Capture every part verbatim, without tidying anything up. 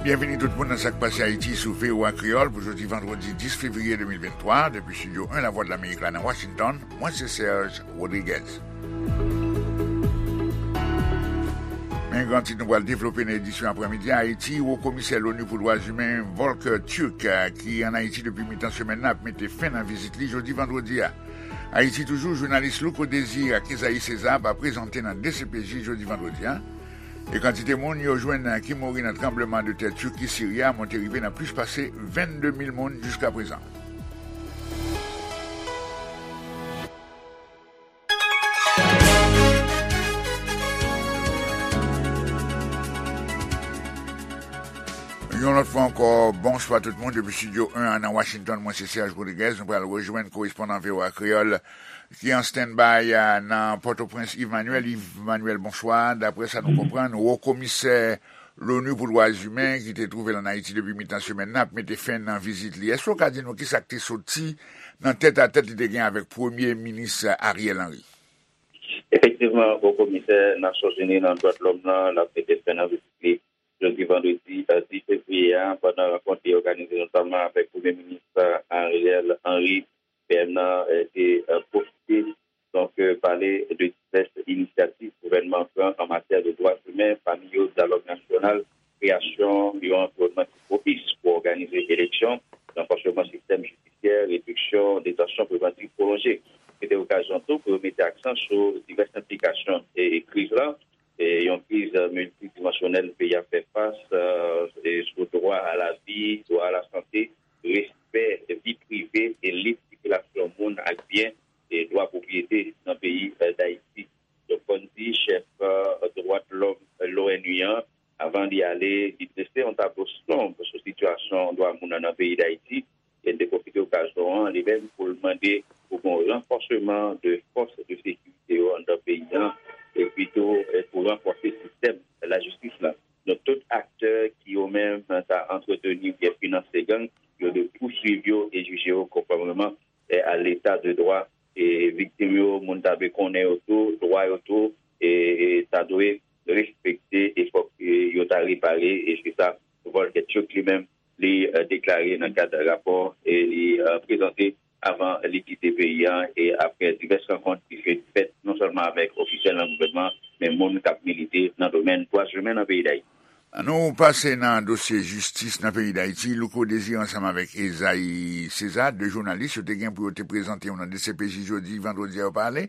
Byenvini tout moun nan Sa k Pase Ayiti sou V O A Kreyòl pou jodi vandredi dis fevriye de mil venntwa, depi Estidyo en Lavwadlamerik la nan Washington, mwen se Serge Rodriguez. Men gran tit nou pral devlope nan edisyon aprèmidi a: Ayiti, Wo Komisè Loni pou Dwa Imen Volker Türk, ki ann Ayiti depi mitan semèn nan, ap mete fen nan vizit li jodi vandredi a. Ayiti toujou, jounalis Louko Désir ak Esaïe César va prezante nan D C P J jodi vandredi a. E kantite moun yo jwenn ki mouri nan tranblemanntè Tiki Siri a monte rive nan plis pase vennde mil moun jiskaprezan. Yon lòt fwa ankò, bonswa tout moun depi Estidyo en an nan Washington. Mwen se Serge Rodriguez. Nou pral rejwenn korespondan V O A Kreyòl ki an standby a nan Pòtoprens, Yves Manuel. Yves Manuel, bonswa. Daprè sa nou konprann, Wo Komisè Loni pou Dwa Imen, ki te twouve l ann Ayiti depi mitan semèn nan, ap mete fen nan vizit li. Èske w ka di nou kisa k te soti nan tètatèt li te gen avèk Premye Minis Ariel Henry? Efektivman, Wo Komisè Nasyonzini nan dwa de lòm nan, l ap mete fen nan vizit li jodi vandredi, eh, dis fevriye a, pandan rankont li òganize notamman avèk Premye Minis, eh, Ariel Henry. P M nan, eh, te, eh, pwofite, donk, eh, pale de divès inisyativ gouvènman an pran an matyè de dwa imen, pami yo dyalòg nasyonal, kreyasyon yon anviwònman ki pwopis pou òganize eleksyon, ranfòsman sistèm jidisyè, rediksyon detansyon prevantif pwolonje. Se te okazyon tou pou yo mete aksan sou divès enplikasyon e, e kriz la, e yon kriz miltidimansyonèl peyi a fè fas, e sou dwa a lavi, dwa a lasante, respè vi prive e lib sikilasyon moun ak byen, e dwa pwopriyete nan peyi, e, Dayiti. Donk, fò n di chèf, e, dwa de lòm, e, l'O N U an, avan li ale, li drese yon tablo sonb sou sitiyasyon dwa moun nan, nan peyi Dayiti. E l te pwofite okazyon an, li menm, pou l mande pou gen yon ranfòsman de fòs de sekirite yo anndan peyi an, epi tou, e pou ranfòse sistèm lajistis la. Donk, tout aktè ki yo menm ta antreteni oubyen finanse gang, yo dwe pouswiv yo e jije yo konfòmeman, e, a leta de dwa. E viktim yo, moun ta dwe konnen yo tou, dwa yo tou, e, e ta dwe respekte, e fòk, e, yo ta repare, e se sa Volker Türk li menm, li, e, deklare nan kad rapò, e li, e, prezante avan li kite peyi an, e apre divès rankont ki fèt, fèt non sèlman avèk ofisyèl nan gouvènman, men moun k ap milite nan domèn dwa imen nan peyi Dayiti. Nou pase nan dosye jistis nan peyi Dayiti. Louko Désir ansanm avèk Esaïe César, de jounalis, yo te gen pou yo te prezante yo nan D C P J jodi vandredi a, yo pa ale.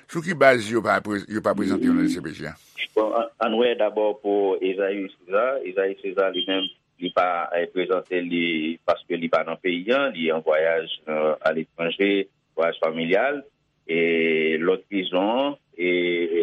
Sou ki baz yo pa pre-, yo pa prezante yo nan D C P J a? Bon, an, ann wè dabò pou Esaïe César. Esaïe César li menm, li pa, eh, prezante li paske li pa nan peyi an, li an vwayaj, eh, aletranje, vwayaj familyal. E lòt rezon, e,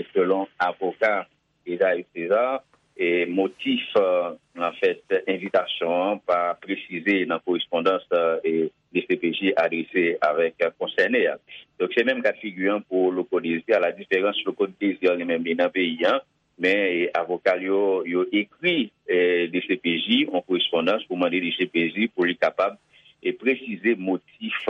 e selon avoka Esaïe César, e motif, eh, anfèt, envitasyon an pa presize nan korespondans, eh, e D C P J adrese avèk, eh, konsène a. Donk, se menm ka figi an pou Louko Désir, a la diferans Louko Désir li menm li nan peyi an, men, e, avoka l yo, yo ekri, e, D C P J yon korespondans pou mande D C P J pou li kapab, e, presize motif,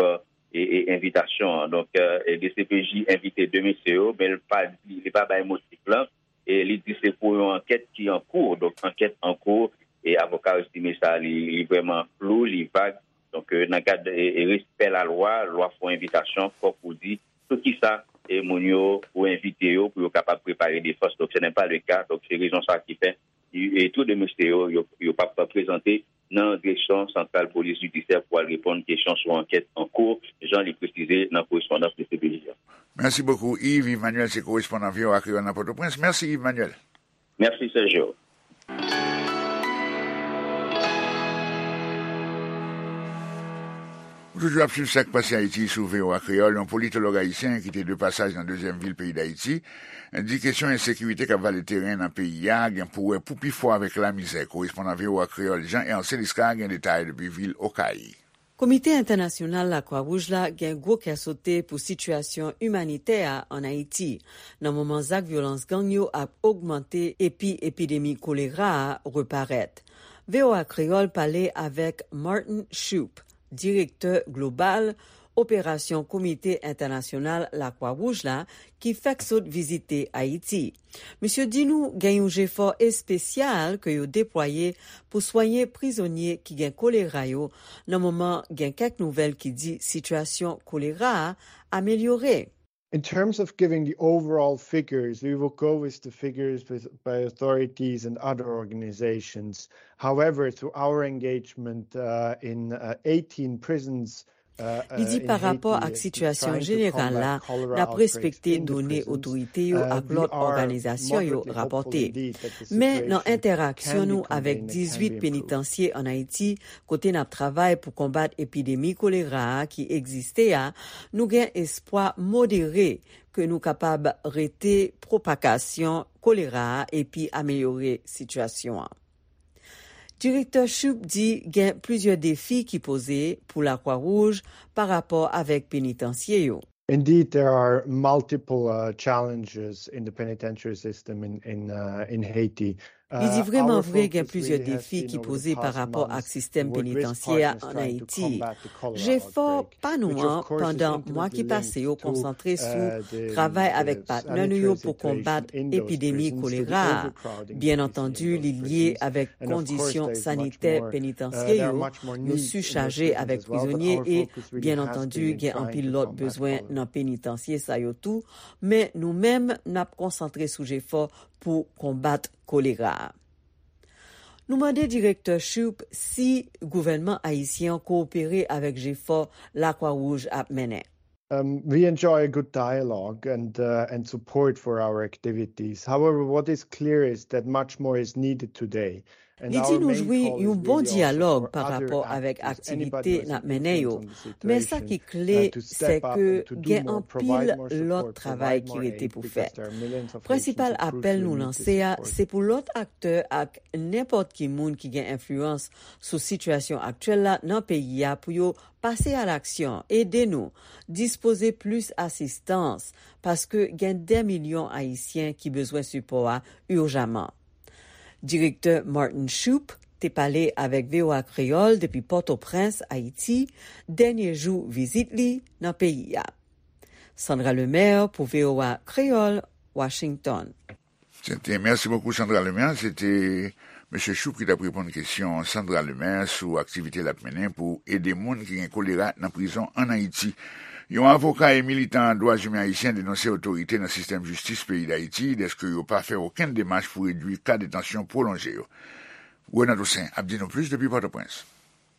e, e, envitasyon an. Donk, e, D C P J envite de mesye yo, men l pa di, li pa bay motif lan, e li di se pou yon ankèt ki an kou. Donk, ankèt an kou, e avoka yo estime sa, li, li vrèman flou, li vag. Donk, e, nan kad, e, e respè lalwa, lwa fè yon envitasyon, fòk ou di sou kisa, e, moun yo, ou envite yo pou yo kapab prepare defans. Donk, ce n'est pas le cas. Donk, se rezon sa ki fè, e, e tou de mesye yo, yo, yo p ap prezante nan direksyon santral polis jidisyè pou al reponn kesyon sou ankèt an kou, jan li presize nan korespondans de C P J a. Mèsi bokou, Yves. Yves Manuel se korespondan V O A Kreyòl nan Pòtoprens. Mèsi, Yves Manuel. Mèsi, Sergio. Ou toujou ap swiv Sa k Pase Ayiti sou V O A Kreyòl. Yon politològ ayisyen ki te de pasaj nan dezyèm vil peyi Dayiti di kesyon ensekirite k ap vale teren nan peyi a gen pou wè pou pi fò avèk lamizè. Korespondan V O A Kreyòl Jean Hercé Lisca gen detay depi vil Okay. Komite Entènasyonal Lakwa Wouj la gen gwo kè sote pou sitiyasyon imanitè a ann Ayiti, nan moman zak vyolans gang yo ap ogmante epi epidemi kolera a reparèt. V O A Kreyòl pale avèk Martin Shoup, direktè global operasyon Komite Entènasyonal Lakwa Wouj la ki fèk sot vizite Ayiti. Misye di nou gen yon jefò espesyal ke yo deplwaye pou swenye prizonye ki gen kolera yo, nan moman gen kèk nouvèl ki di sitiyasyon kolera a amelyore. In terms of giving the overall figures, we will go with the figures with, by authorities and other organizations. However, through our engagement uh, in uh, eighteen prisons, uh, Li di pa rapò ak sitiyasyon jeneral la, n ap respekte done otorite yo ak lòt òganizasyon yo rapòte. Men nan entèraksyon nou avèk dizuit penitansye ann Ayiti, kote n ap travay pou konbat epidemi kolera a ki egziste a, nou gen espwa modere ke nou kapab rete pwopagasyon kolera a epi amelyore sitiyasyon an. Direktè Shoup di gen plizyè defi ki poze pou Lakwa Wouj pa rapò avèk penitansye yo. Indeed, there are multiple uh, challenges in the penitentiary system in, in, uh, in Haiti. Li di, vrèman vre, gen plizyè defi ki poze pa rapò ak sistèm penitansyè a ann Ayiti. Jefò pa nou an pandan mwa ki pase yo konsantre sou travay avèk patnè nou yo pou konbat epidemi kolera a. Byen antandi, li lye avèk kondisyon sanitè penitansye yo, yo sichaje avèk prizonye e, byen antandi, gen anpil lòt bezwen nan penitansye sa yo tou, men nou menm, n ap konsantre sou jefò pou konbat kolera a. Nou mande direktè Shoup si gouvènman ayisyen an kowopere avèk jefò Lakwa Wouj ap mennen. Um, we enjoy a good dialogue and, uh, and support for our activities. However, what is clear is that much more is needed today. Li di nou jwi yon bon dyalòg pa rapò avèk aktivite n ap mennen yo. Men sa ki kle, se ke gen anpil lòt travay ki rete pou fèt. Prensipal apèl nou lanse a, se pou lòt aktè ak nenpòt ki moun ki gen enfliyans sou sitiyasyon aktyèl la nan peyi a pou yo pase a laksyon, ede nou, dispoze plis asistans, paske gen dè milyon Ayisyen ki bezwen sipò a ijaman. Direktè Martin Shoup te pale avèk V O A Kreyòl depi Pòtoprens, Ayiti, dènye jou vizit li nan peyi a. Sandra Lemaire pou V O A Kreyòl, Washington. Sete, mèsi bokou Sandra Lemaire, sete mesye Shoup ki t ap reponn kesyon Sandra Lemaire sou aktivite l ap mennen pou ede moun ki gen kolera nan prizon ann Ayiti. Yon avoka e militan dwa imen ayisyen denonse otorite nan sistèm jistis peyi Dayiti dèske yo pa fè okenn demach pou redui ka detansyon pwolonje yo. Renan Toussaint ap di nou plis depi Pòtoprens.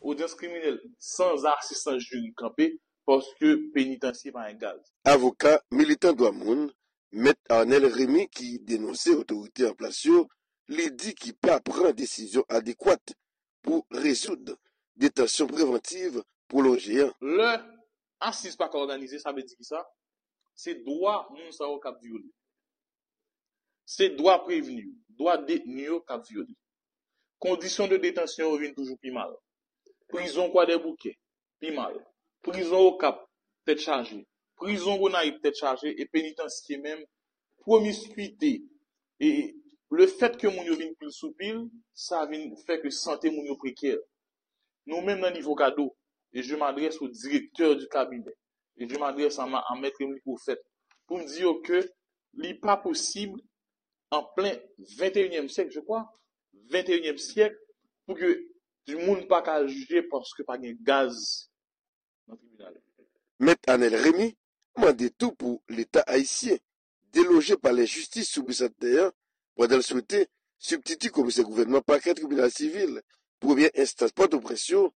Odyans kriminèl san asistans jiri kanpe paske penitansye pa gen gaz. Avoka, militan dwa moun, Mèt Arnel Remy ki denonse otorite an plas yo, li di ki pa pran desizyon adekwat pou rezoud detansyon prevantiv pwolonje an. Lè asiz pa ka òganize, sa vle di kisa? Se dwa moun sa yo k ap vyole. Se dwa prevni yo, dwa detni yo k ap vyole. Kondisyon de detansyon yo vin toujou pi mal. Prizon Kwadèboukè, pi mal. Prizon Okap, tèt chaje. Prizon Gonayiv, tèt chaje. E penitansye menm, pwomiskwite. E lefèt ke moun yo vin pil sou pil, sa vin fè ke sante moun yo prekè. Nou menm nan nivo kado, e je m'adresse au directeur du cabinet, e je m'adresse à, à Maître Emily Prophète, pou m di yo ke li pa posib an plen venteyinyèm syèk, je crois, venteyinyèm syèk, pou ke moun pa ka jije paske pa gen gaz nan tribinal. Mèt Anèl Remy mande tou pou Leta ayisyen deloje palè jistis sou Bisantnè an pandan l swete sibtiti komisè gouvènman pakè tribinal sivil premyè enstans Pòtoprens yo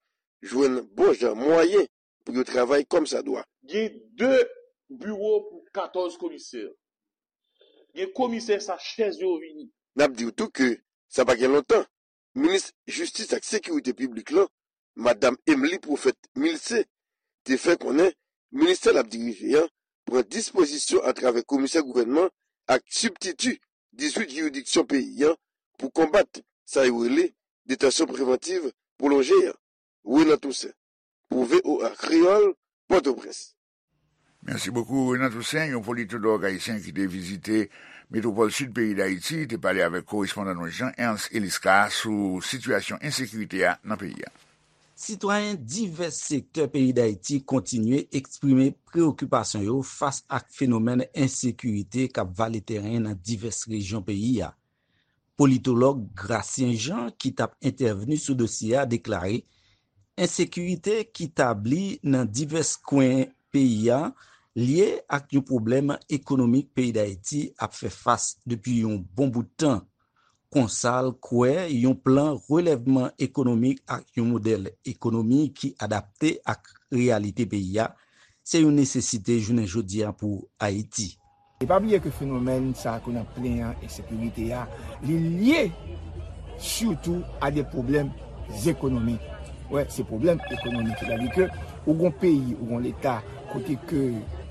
jwenn bon jan mwayen pou yo travay kòmsadwa. Gen de biwo pou katòz komisè. Gen komisè sa chèz yo vini. N ap di w tou ke sa pa gen lontan, minis jistis ak sekirite piblik lan, Madam Emely Prophète Milcé, te fè konnen ministè l ap dirije an pran dispozisyon atravè komisè gouvènman ak sibtiti dizuit jiridiksyon peyi an pou konbat sa yo rele detansyon prevantiv pwolonje an. Renan Toussaint, pou V O A Kreyòl, Pòtoprens. Mèsi bokou Renan Toussaint. Yon politològ ayisyen ki te vizite metwopòl sid peyi Dayiti te pale avèk korespondan nou Jean Ernst Eliscar sou sitiyasyon ensekirite a nan peyi a. Sitwayen divès sektè peyi Dayiti kontinye eksprime preyokipasyon yo fas ak fenomèn ensekirite k ap vale teren nan divès rejyon peyi a. Politològ Gracien Jean, ki t ap entèvni sou dosye a, deklare ensekirite ki tabli nan divès kwen peyi a lye ak yon pwoblèm ekonomik peyi Dayiti ap fè fas depi yon bon bout tan. Konsa l kwè yon plan relèvman ekonomik ak yon modèl ekonomi ki adapte ak reyalite peyi a se yon nesesite jounen jodi a pou Ayiti. E pa bliye ke fenomèn sa a ke n ap plenyen an, ensekirite a, li lye sitou a de pwoblèm ekonomik. Wè, se pwoblèm ekonomik. Sètadi ke ou gon peyi, ou gon leta, kote ke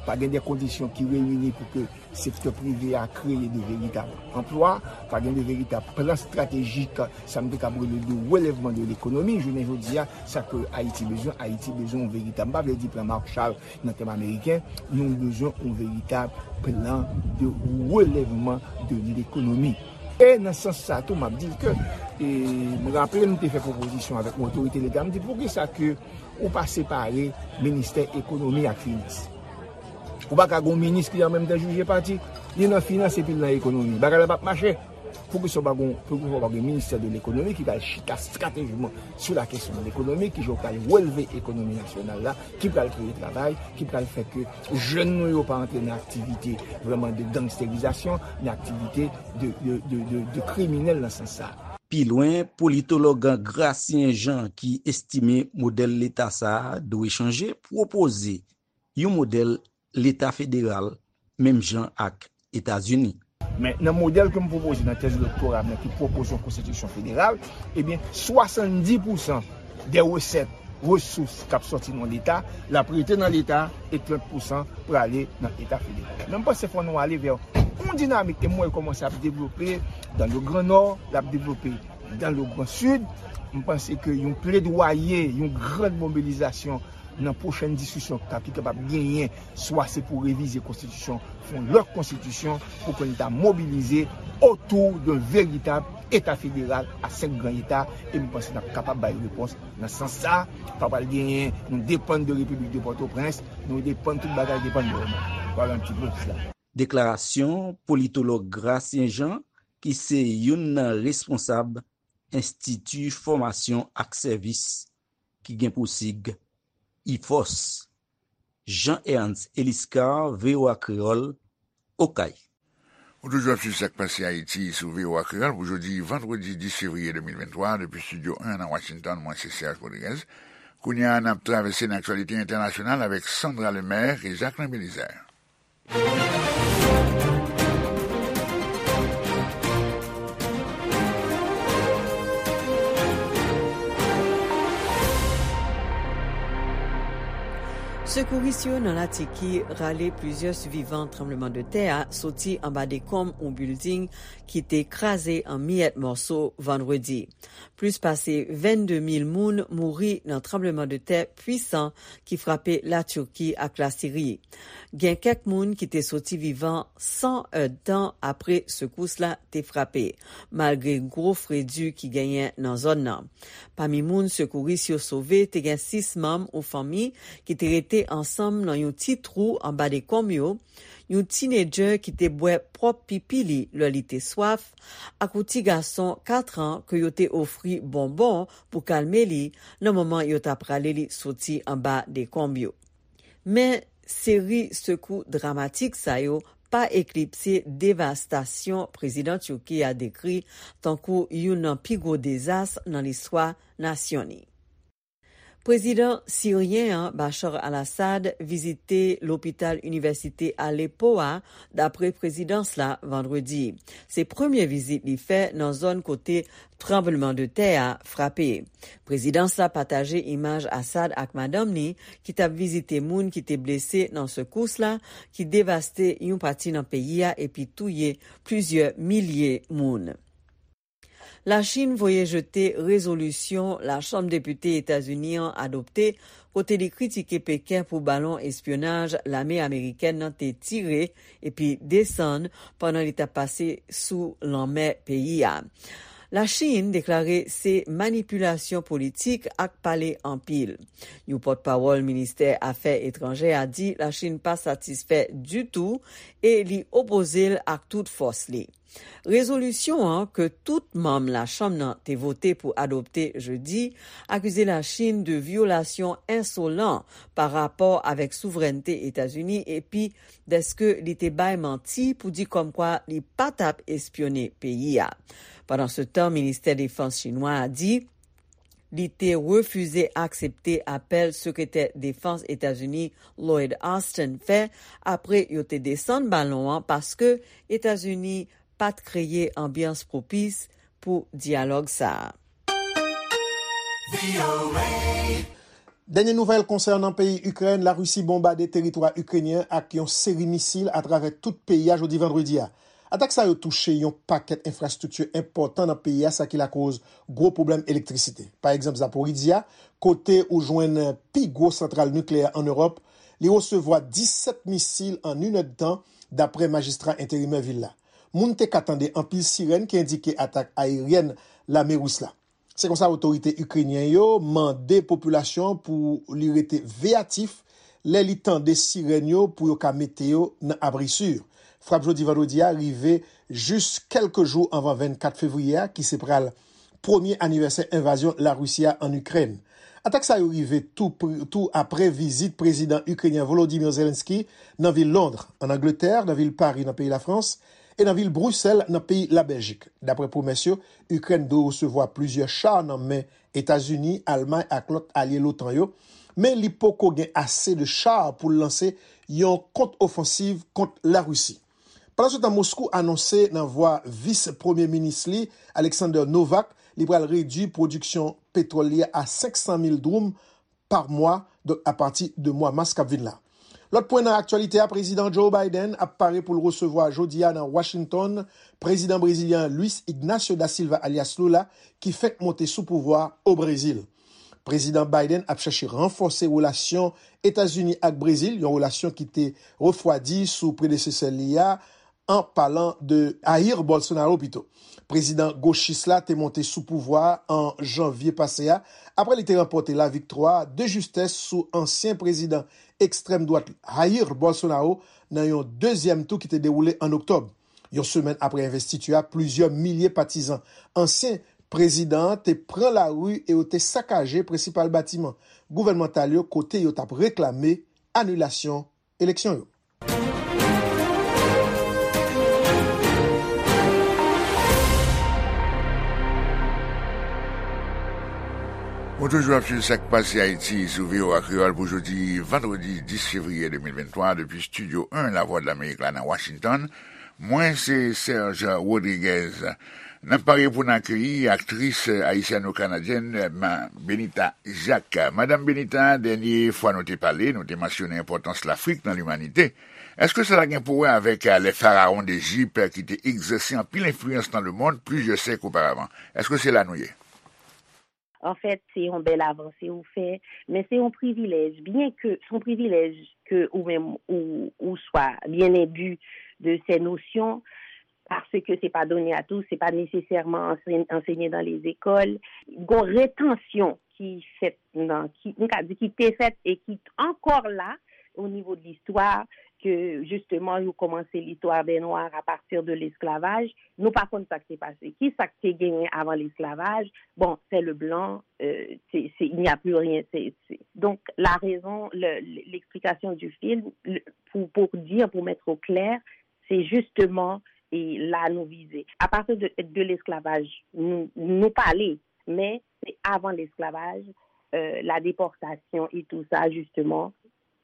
pa gen de kondisyon ki reyini pou ke sektè prive a kreye de veritab anplwa, pa gen de veritab plan estratejik, sa m te kab rele de relèvman de lekonomi. Jounen jodi a, sa ke Ayiti bezwen, Ayiti bezwen yon veritab, m pa vle di plan Marshall nan tèm ameriken, nou bezwen yon veritab plan de relèvman de lekonomi. E nan sans sa tou, m ap di ke, e, m raple m te fè pwopozisyon avèk yon otorite leta, m di poukisa ke ou pa separe ministè ekonomi ak finans. Ou pa ka gon minis ki an menm tan jije pati, li nan finans epi l nan ekonomi. Bagay la p ap mache. Poukisa w pa gon, poukisa w pa gen ministè de lekonomi ki pral chita estratejikman sou la kesyon de lekonomi, ki jan w pral releve ekonomi nasyonal la, ki pral kreye travay, ki pral fè ke jèn nou yo pa antre nan aktivite vrèman de gangsterizasyon, nan aktivite de, de, de, de, de kriminèl nan sans sa. Pi lwen, politològ Gracien Jean, ki estime modèl leta sa a dwe chanje, pwopoze yon modèl leta federal menm jan ak Etazini. Men nan modèl ke m pwopoze nan tèz doktora m nan ki pwopoze yon konstitisyon federal, ebyen, swasanndis pousan de resèt, resous k ap sòti nan leta, l ap rete nan leta e trant pousan prale nan eta federal. Men m panse fò nou ale vè yon dinamik e m wè l kòmanse ap devlope dans le Grand Nord, l ap devlope dans le Grand Sud. M panse ke yon pledwaye, yon gran mobilizasyon nan pwochèn diskisyon k ap, ki kapab genyen, swa se pou revize konstitisyon, fè yon lòt konstitisyon, pou ke n ta mobilize otou de veritab eta federal a senk gran eta, e m panse n ap kapab bay repons nan sans sa. Pa pral genyen, nou depann de Repiblik de Pòtoprens, nou depann, tout bagay depann de yo menm. Vwala yon ti pòs la. Deklarasyon politològ Gracien Jean, ki se youn nan responsab Enstiti Fòmasyon ak Sèvis, ki gen pou sig ifòs. Jean Ernst Eliscar, V O A Kreyòl, Okay. Ou toujou ap swiv Sa k Pase Ayiti sou V O A Kreyòl pou jodi vandredi dis fevriye de mil venntwa, depi estidyo en nan Washington, mwen se Serge Rodriguez. Kounye a, n ap travèse nan aktyalite entènasyonal avèk Sandra Lemaire e Jacquelin Belizaire. Sekouris yo nan Latiki rale plizyè sivivan tranblemanntè a soti anba dekonm yon bilding ki te kraze an miyèt mòso vandredi. Plis pase vennde mil moun mouri nan tranblemanntè pwisan ki frape Latiki ak Lasiri. Gen kèk moun ki te soti vivan san èdtan apre sekous la te frape, malgre gwo fredi ki genyen nan zòn nan. Pami moun sekouris yo sove, te gen sis manm yon fanmi ki te rete ansanm nan yon ti twou anba dekonm yo, yon tinedjè ki te bwè pwòp pipi li lè li te swaf, ak yon ti gason kat an ke yo te ofri bonbon pou kalme li nan moman yo t ap rale li soti anba dekonm yo. Men, seri sekou dramatik sa yo pa eklipse devastasyon prezidan Tiki a dekri tankou youn nan pi gwo dezas nan listwa nasyon li. Prezidan siryen an, Bashar al-Assad, vizite lopital inivèsite Aleppo a, dapre prezidans la, vandredi. Se premye vizit li fè nan zòn kote tranblemanntè a frape. Prezidans la pataje imaj Assad ak madanm li, ki t ap vizite moun ki te blese nan sekous la, ki devaste yon pati nan peyi a epi touye plizyè milye moun. Lachin voye jete rezolisyon Lachanm Depite Etazini an adopte, kote li kritike Peken pou balon espyonaj lame amerikèn nan te tire epi desann pandan li t ap pase sou lanmè peyi a. Lachin deklare se manipilasyon politik ak pale anpil. Yon pòtpawòl ministè afè etranjè a di Lachin pa satisfè ditou e li opoze l ak tout fòs li. Rezolisyon an, ke tout manm Lachanm nan te vote pou adopte jedi, akize Lachin de vyolasyon ensolan pa rapò avèk souvrènte Etazini epi dèske li te bay manti pou di kòmkwa li pa t ap espyone peyi a. Pandansetan, Ministè Defans chinwa a di li te refize aksepte apèl Sekretè Defans Etazini Lloyd Austin fè apre yo te desann balon an paske Etazini pa t kreye anbyans pwopis pou dyalòg sa a. Dènye nouvèl konsènan peyi Ikrèn, Larisi bonbade teritwa ikrenyen ak yon seri misil atravè tout peyi a jodi vandredi a. Atak sa yo touche yon pakèt enfrastrikti enpòtan nan peyi a, sa ki lakoz gwo pwoblèm elektrisite. Pa egzanp, Zaporizhzhia, kote ou jwenn pi gwo santral nikleyè an Ewòp, li resevwa disèt misil an inèdtan, dapre majistra enterimè vil la. Moun te ka tande anpil sirèn ki endike atak ayeryèn lame ris la. Se konsa otorite ikrenyen yo mande popilasyon pou li rete veyatif lè li tande sirèn yo pou yo ka mete yo nan abri si. Frap jodi vandredi a rive jis kèlke jou anvan vennkat fevriye a, ki se pral premye anivèsè envazyon Larisi a ann Ikrèn. Atak sa yo rive tou, tou apre vizit prezidan ikrenyen Volodymyr Zelensky nan vil Londres, ann Angletè, nan vil Paris, nan peyi Lafrans, e nan vil Brisèl, nan peyi Labèljik. Dapre pwomès yo, Ikrèn dwe resevwa plizyè cha nan men Etazini, Almay ak lòt alye l'OTAN yo, men li poko gen ase de cha pou l lanse yon kont-ofansiv kont Larisi. Pandansetan, Moskou anonse nan vwa vis premye minis li, Alexander Novak, li pral redui pwodiksyon petwòl li a senk san mil dwoum pa mwa, donk apati de mwa mas k ap vin la. Lòt pwen nan aktyalite a, Prezidan Joe Biden ap pare pou l resevwa jodi a nan Washington Prezidan brezilyen an Luiz Ignacio da Silva alyas Lula, ki fenk monte sou pouvwa a o Brezil. Prezidan Biden ap chèche ranfòse relasyon Etazini ak Brezil, yon relasyon ki te refwadi sou predesesè li a, an palan de Jair Bolsonaro pito. Prezidan gochis la te monte sou pouvwa a an janvye pase a, apre li te ranpòte laviktwa de jistès sou ansyen prezidan ekstrèm dwat Jair Bolsonaro nan yon dezyèm tou ki te dewoule an oktòb. Yon semèn apre envestiti a, plizyè milye patizan ansyen prezidan an te pran lari e yo te sakaje prensipal batiman gouvènmantal yo kote yo t ap reklame anilasyon eleksyon yo. Ou toujou ap swiv Sa k Pase Ayiti sou V O A Kreyòl pou jodi vandredi dis fevriye de mil venntwa depi Estidyo en Lavwadlamerik la nan Washington. Mwen se Serge Rodriguez. N ap pare pou n akeyi aktris ayisyano-kanadyèn Benita Jacques. Madanm Benita, dènye fwa nou te pale, nou te mansyone enpòtans Lafrik nan limanite. Èske sa ta gen pou wè avèk les pharaons d'Égypte ki te egzèse anpil enfliyans nan lemonn plizyè syèk oparavan? Èske se la nou ye? Anfèt, se yon bèl avanse ou fè, men se yon privilèj, byen ke se yon privilèj ke ou menm ou, ou swa byen enbi de ces notions, paske se pa done a tous, se pa nesesèman ansenye dans les écoles. Gon retansyon ki fèt nan, ki, m ka di ki te fèt e ki ankò la o nivo de listwa, ke jisteman yo kòmanse listwa dè nwa a pati de lesklavaj. Nou pa konn sa k te pase. Ki sa k te genyen avan lesklavaj? Bon, c'est le blanc, euh, c'est, c'est, il n'y a plus rien. C'est, c'est... Donc, la raison, le, l'explication du film, le, pour, pour dire, pour mettre au clair, c'est justement, e la nou vize. Apati de, de lesklavaj, nou, nou pale, men se avan lesklavaj, euh, la déportation et tout ça, justement,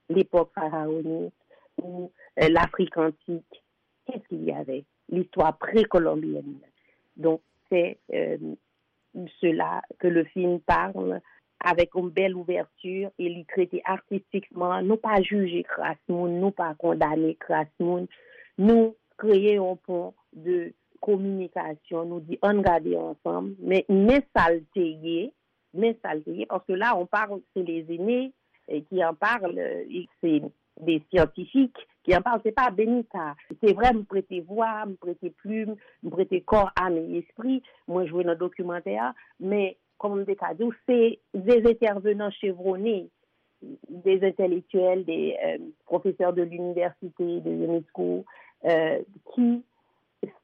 l'époque pharaonique ou euh, l'Afrique antique, qu'est-ce qu'il y avait? L'histoire précolombienne. Donc, c'est euh, cela que le film parle avec une belle ouverture et li trete artistikman. Nou pa jije kras moun, nou pa kondane kras moun. Nou kreye yon pon de kominikasyon, nou di ann gade ansanm, men men sa l te ye, men sa l te ye, paske la on parle, se les aînés eh, qui en parlent, eh, c'est des scientifiques, Ki anpase pa Benita. Se vre, m prete vwa, m prete plim, m prete kò, am e espri, mwen jwe nan dokimantè a, men, kòman m te ka di w, se des intervenants chevronnés, des intellectuels, des euh, professeurs de l'université, de l'UNESCO, euh, qui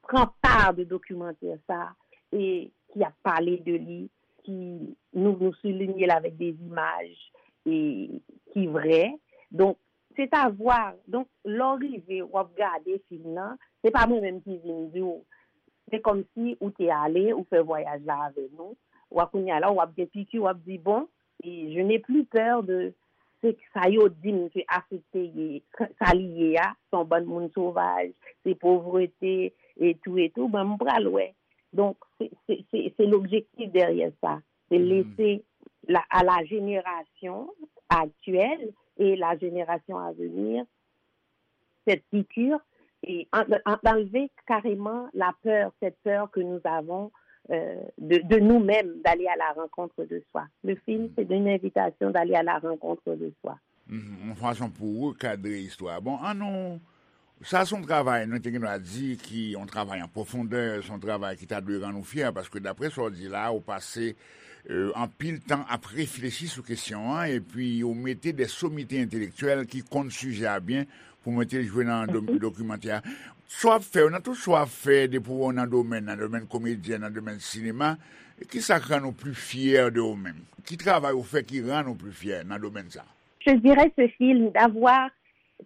pran pa de dokimantè sa e ki ap pale de li, ki nou, nou soulinye l avèk de imaj e ki vrè. Donk, se ta vwa. Donk, lè w rive, w ap gade fim nan, se pa mwen menm ki vin di w. Se kòmsi ou te ale, ou fè vwayaj la avè nou. W ap kounye a la, w ap gen piki, w ap di, bon, e je n'ai plus peur de se sa yo di m ke Afrik te ye, sa li ye a, se yon bann moun sovaj, se povrete, e tou, e tou, bon, m pral wè. Donk, se, se, se, se lobjektif dèyè sa. Se lese la, à la génération actuelle et la génération à venir cette piqûre et en- en- d'enlever carrément la peur, cette peur que nous avons euh, de, de nous-mêmes, d'aller à la rencontre de soi. Le film, c'est une invitation d'aller à la rencontre de soi. Mhm, yon fason pou rekadre istwa. Bon, an nou, sa se yon travay, nou te gen dwa di, ki yon travay an pwofondè, se yon travay ki ta dwe rann ou fyè, paske daprè sa w di la, ou pase euh, anpil tan ap reflechi sou kesyon an, epi ou mete de somite entelektyèl ki konn sijè a byen pou mete l jwe nan do- dokimantè a. Sa w ap fè yo, nan tout sa w ap fè, depi w nan domèn, nan domèn komedyè, nan domèn sinema, kisa k rann ou pli fyè de ou menm? Ki travay ou fè ki rann ou pli fyè nan domèn sa? Je dirais ce film d'avoir,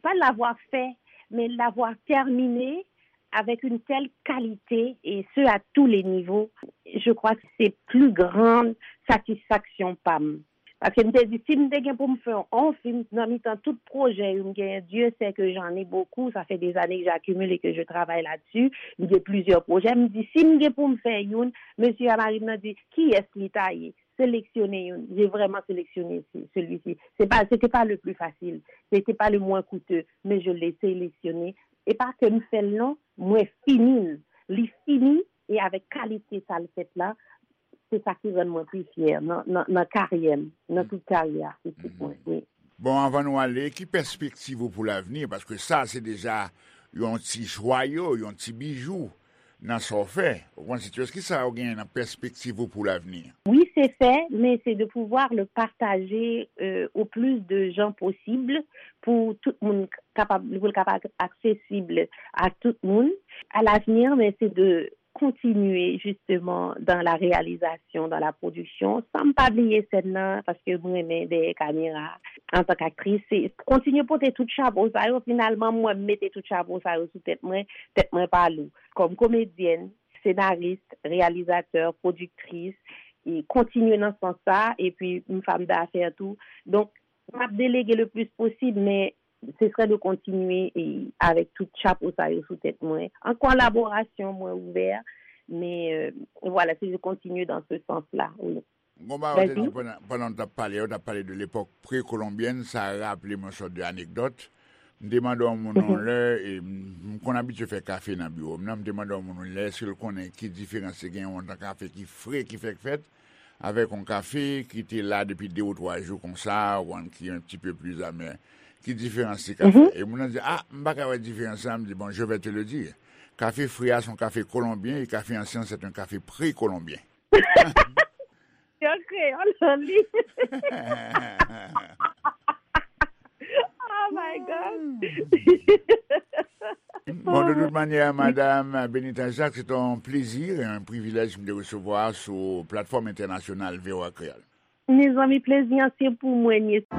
pas l'avoir fait, mais l'avoir terminé avec une telle qualité, et ce à tous les niveaux. Je crois que c'est plus grande satisfaction pa m. Paske m te di, si m te gen pou m fè yon fim nan mitan tout pwojè yo m genyen, Dieu sait que j'en ai beaucoup, ça fait des années que j'accumule et que je travaille là-dessus, m gen plizyè pwojè, m di, si m gen pou m fè youn, mesye a mari m nan di, kiyès li ta ye? Seleksyone youn. J'ai vraiment sélectionné ce- celui-ci. C'est pas, c'était pas le plus facile. C'était pas le moins coûteux. Mais je l'ai sélectionné. Et pas que m fè l non, mwen fini l. Li fini e avèk kalite sa l fèt la, se sa ki rann mwen pi fyè nan, nan, nan karyè m, nan tout karyè artistik mwen. Wi. Bon, anvan nou ale, ki pèspektiv ou pou lavni? Paske sa, se deja yon ti jwayo, yon ti bijou nan sa w fè. Ou konn, se kisa w genyen nan pèspektiv ou pou lavni? Oui, c'est fait, mais c'est de pouvoir le partager euh, au plus de gens possible pour tout le monde capable, pour le capable accessible à tout le monde à l'avenir, mais c'est de continuer justement dans la réalisation, dans la production, san m pa bliye sèn nan, paske mwen renmen dèyè kamera antan k aktris, se kontinye pote tout chapo sa yo, finalman mwen m mete tout chapo sa yo sou tèt mwen, tèt mwen pa lou. Kòm komedyèn, senaris, reyalizatè, pwodiktris, e kontinye nan sans sa, epi m fanm dafè tou. Donk, m ap delege le plis posib, men se sre de kontinye e avèk tout chapo sa yo sou tèt mwen. An kolaborasyon, mwen ouvè, men euh, voilà, se de kontinye dans ce sens-là, wi. Gon bagay ou te di pandan, pandan w t ap pale, ou t ap pale de lepòk prekolonbyèn, sa raple m yon sòt de anekdòt. M te mande yon moun yon lè, e m m konn abitye fè kafe nan biwo m nan, m te mande yon moun yon lè si l konnen ki diferans te gen yon tan kafe ki fre ki fèk fèt, avèk yon kafe ki te la depi de ou twa jou konsa, ou konn, ki un petit peu plus amer. Ki diferans li ka fè? E moun nan di, a, m pa ka wè diferans la, m di, bon, je vais te le dire. Kafe fre a se yon kafe kolonbyen e kafe ansyen se yon kafe prekolonbyen. Yo kreyòl li. Oh my God. Bon, de tout manyè, Madam Benita Jacques, se te yon plezi, yon privilèj m te resevwa sou platfòm entènasyonal V O A Kreyòl. Mezanmi, plezi an se pou mwen, yes.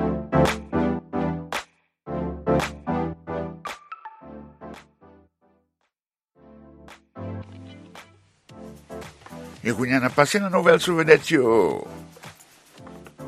E kounye a, n ap pase nan nouvèl sou vedèt yo.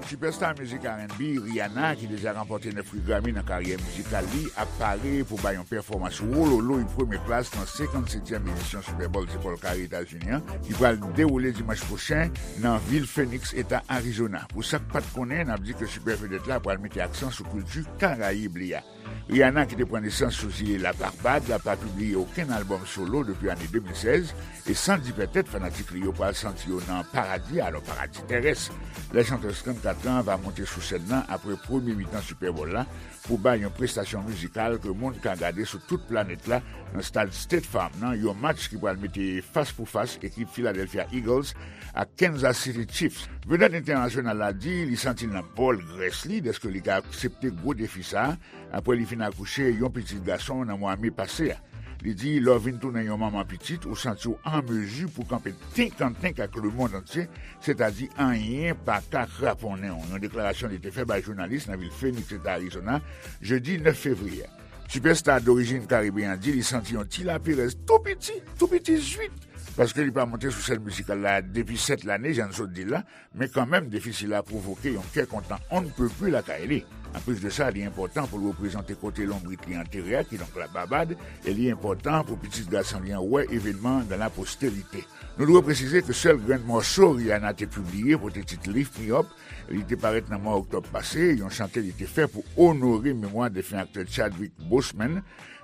Sipèsta mizik R and B, Rihanna, ki deja ranpòte nèf pri Grammy nan karyè mizikal li, ap pare pou bay yon pèfòmans wololoy premye klas nan senkannsetyèm edisyon Super Bowl ti Pòl Kare Etazini an, ki pral dewoule dimanch pwochen nan vil Phoenix, eta Arizona. Pou sa k pa t konnen, n ap di ke sipè vedèt la pral mete aksan sou kilti Karayib li a. Rihanna, ki te pran nesans sou zile Labarbad, pa pibliye okenn albòm solo depi ane de mil sèz, e san di pètèt fanatik li yo pral santi yo nan paradi, alò paradi tèrès. La chanteuse trannkat Stan va monte sou sèn nan apre premye mitan Super Bowl la pou bay yon prestasyon mizikal ke moun ka gade sou tout planèt la nan stad State Farm nan, yon match ki pral mete fas pou fas ekip Philadelphia Eagles ak Kansas City Chiefs. Vedèt entènasyonal la di li santi l nan bòl grès li dèske li ka aksepte gwo defi sa a apre li fin akouche yon pitit gason nan mwa me pase a. Li di, lè w vin tounen yon manman pitit, ou santi w an mezi pou kanpe tenkantenk ak lemonn antye, sètadi anyen pa ka kraponnen w. Yon deklarasyon li te fè bay jounalis nan vil Phoenix, Eta Arizona, jedi nèf fevriye a. Sipèsta dorijin karibeyen an di li santi yon ti laperèz tou piti, tou piti zwit, paske li pa monte sou sèn mizikal la depi sèt lane, jan n sot di l la, men kanmenm defi sila pwovoke yon kè kontan on ne peut plus lakay li. Anplis de sa, li enpòtan pou l reprezante kote lonbrit li antere a, kidonk la Babad, e li enpòtan pou pitit gason li an wè evènman nan laposterite. Nou dwe presize ke sèl grenn mòso Rihanna te pibliye pote tit Lift Me Up, li te parèt nan mwa oktòb pase, yon chante li te fè pou onore memwa defen aktè Chadwick Boseman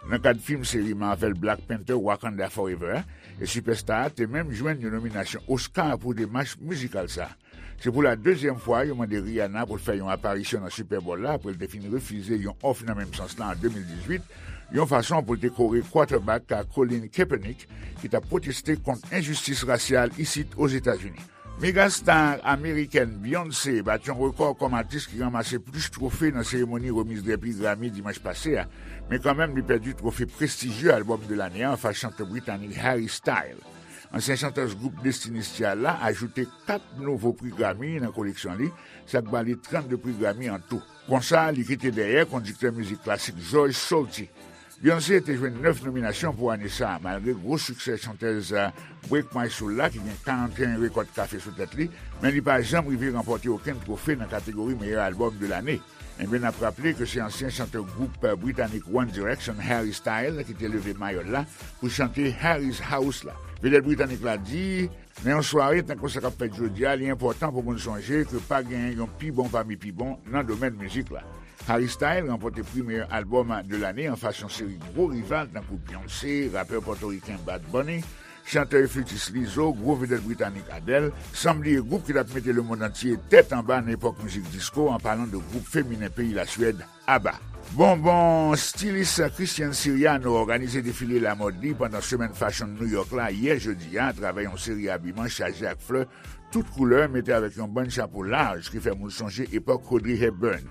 nan kad fim seri Marvel Black Panther Wakanda Forever a, e sipèsta a te menm jwenn yon nominasyon Oscar pou demach mizikal sa. Se pou la dezyèm fwa yo mande Rihanna pou l fè yon aparisyon nan Super Bowl la apre l te fin refize yon òf nan menm sans la an de mil dizuit, yon fason pou l te kore quarterback Colin Kaepernick ki t ap pwoteste kont enjistis rasyal isit Ozetazini. Megastar amerikèn Beyoncé bat yon rekò kòm atis ki ranmase plis twofe nan seremoni remiz de pri Grammy dimanch pase a, men kanmenm li pèdi twofe prestijye albòm de lane a anfas chantè britanik Harry Styles. Ansyen chantèz gwoup Destiny's Child la ajoute kat nouvo pri Grammy nan koleksyon li, sa k ba li trannde pri Grammy an tou. Konsa, li kite dèyè kondiktè mizik klasik George Solti. Beyoncé te jwenn nèf nominasyon pou ane sa a, malgre gwo siksè chantèz Break My Soul la, ki gen karanteyen rekòt kafe sou tèt li, men li pa janm rive ranpòte okenn twofe nan kategori meyè albòm de lane. Enben, n ap raple ke se ansyen chantè gwoup britanik One Direction, Harry Styles, ki te leve mayo l la pou chante Harry's House la. Vedèt britanik la di, nan yon sware tankou sa k ap fèt jodi a, li enpòtan pou moun sonje ke pa genyen yon pi bon pami pi bon nan domèn mizik la. Harry Styles ranpòte pri meyè albòm de lane anfas yon seri gwo rival tankou Beyoncé, rapè pòtoriken Bad Bunny, chantè e flitis Lizzo, gwo vedèt britanik Adele, san bliye gwoup ki t ap mete lemonn antye tèt anba nan epòk mizik disko, an palan de gwoup feminen peyi Laswèd, ABBA. Bonbon stilis Christian Siriano òganize defile lamòd li pandan semèn fashion New York la yè jedi a atravè yon seri abiman chaje ak flè tout koulè mete avèk yon bann chapo laj ki fè moun sonje epòk Audrey Hepburn.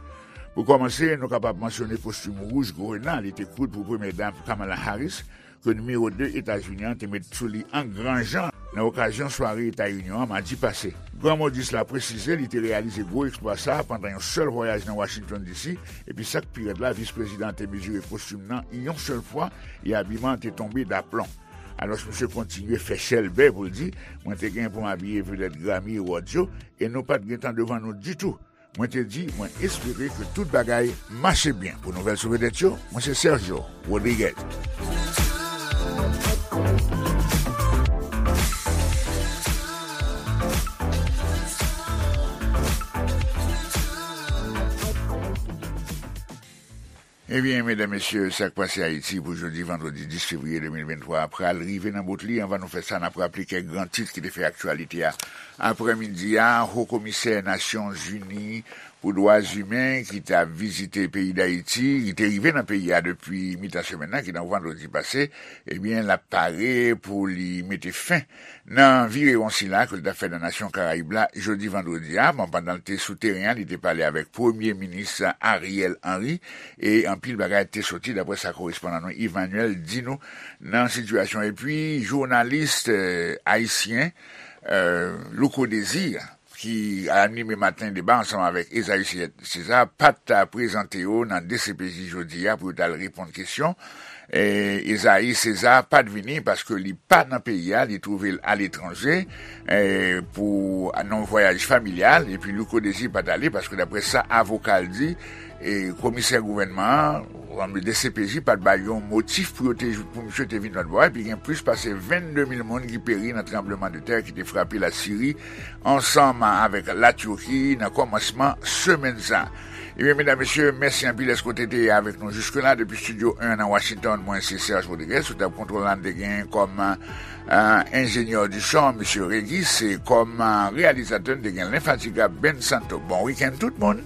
Pou kòmanse, nou kapab mansyone kostim wouj grena li te koud pou premyè dam Kamala Harris, ke nimewo de Etazini an te met sou li an gran jan nan okazyon sware Eta Inyon an madi pase. Gran modis la presize li te reyalize gwo eksplwa sa a pandan yon sèl vwayaj nan Washington D C, epi sa k pi rèd la, vis prezidan an te mezire kostim nan yon sèl fwa e abiman an te tonbe daplon. Alòs, misye kontinye fè chèlbè pou l di, mwen te gen pou m abiye vedèt Grammy Awards yo, e nou pa t gen tan devan nou ditou. Mwen te di, mwen espere ke tout bagay mache byen. Pou nouvèl sou vedèt yo, mwen se Sergio Rodriguez. Ebyen, medam, mesye, sa k pase Ayiti pou jodi vandredi dis fevriye de mil venntwa a pral rive nan bout li. Anvan nou fè sa, n ap raple kèk gran tit ki te fè aktyalite a. Aprèmidi a, Ho Komisè Nasyonzini pou Dwa Imen ki t ap vizite peyi Dayiti, ki te rive nan peyi a depi mitan semèn nan, ki nan vandredi pase, ebyen, l ap pare pou li mete fen nan virewon sila ke l t ap fè nan nasyon Karayib la jodi vandredi a. Bon, pandan l te sou teren an, li te pale avèk Premye Minis Ariel Henry e anpil bagay te soti, daprè sa korespondan nou Emmanuel di nou nan sitiyasyon. Epi, jounalis, eh, ayisyen, eh, Louko Désir, ki anime Maten Deba ansanm avèk Esaü César, pa t prezante yo nan D C P J jodi a pou yo t al reponn kesyon. E, Esaü César pa t vini paske li pa nan peyi a, li twouve l aletranje, e, pou, nan yon vwayaj familyal, epi Louko Désir pa t ale paske, daprè sa avoka l di, e komisè gouvènman an, D C P J, pa t bay yon motif pou yo te, pou misye te vin lòt bò a, epi gen plis pase vennde mil moun ki peri nan tranbleman de tè ki te frape Lasiri ansanm avèk Latiki nan kòmansman semèn sa. Ebyen, medam, mesye, mèsi anpil èske w te, te avèk nou jiske la. Depi Studio un nan Washington, mwen se Serge Rodriguez. Sou tab kontwòl la, n te gen kòm, euh, enjenyè di son, mesye Regis, e kòm, euh, reyalizatè, n te gen lenfatigab Ben Santo. Bon wikenn, tout moun!